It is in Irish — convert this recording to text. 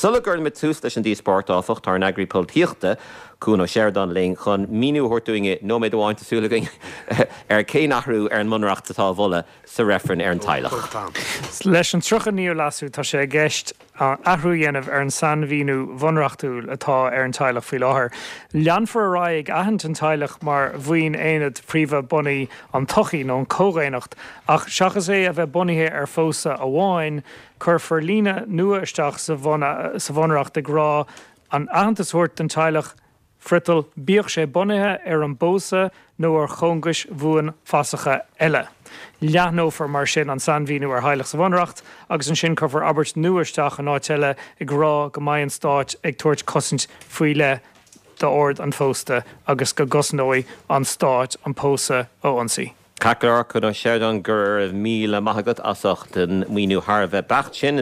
Sula gcuirimid tús leis an díospóireacht, áfach, tá ár n-eagraí polaitíochta, Cuan Ó Seireadáin linn chun míniú a thabhairt dúinn i nóiméad amháin, tá súil againn, ar cén athrú ar an mBunreacht atá á mholadh sa reifreann ar an teaghlach. Leis an 39ú Leasú tá sé i gceist athrú a dhéanamh ar an sainmhíniú bhunreachtúil atá ar an teaghlach faoi láthair. Leanfar ar aghaidh ag aithint an teaghlach mar bhuíon aonad príomha bunaidh an tsochaí nó an chomhdhaonnacht ach seachas é a bheith bunaithe ar phósadh amháin, cuirfear líne nua isteach sa Bhunreacht ag rá an aitheantas a thabhairt don teaghlach friotal, bíodh sé bunaithe ar an bpósadh nó ar chóngais bhuanfhasacha eile. Leathnófar mar sin an sainmhíniú ar theaghlach sa Bhunreacht agus ansin cuirfear abairt nua isteach in áit eile ag rá go mbeidh an Stát ag tabhairt cosaint faoi leith d'ord an phósta agus go gcosnóidh an Stát an pósadh ó ionsaí. Ceart go leor, Cuan Ó Seireadáin, go raibh míle maith agat as ucht an míniú thar a bheith beacht sin.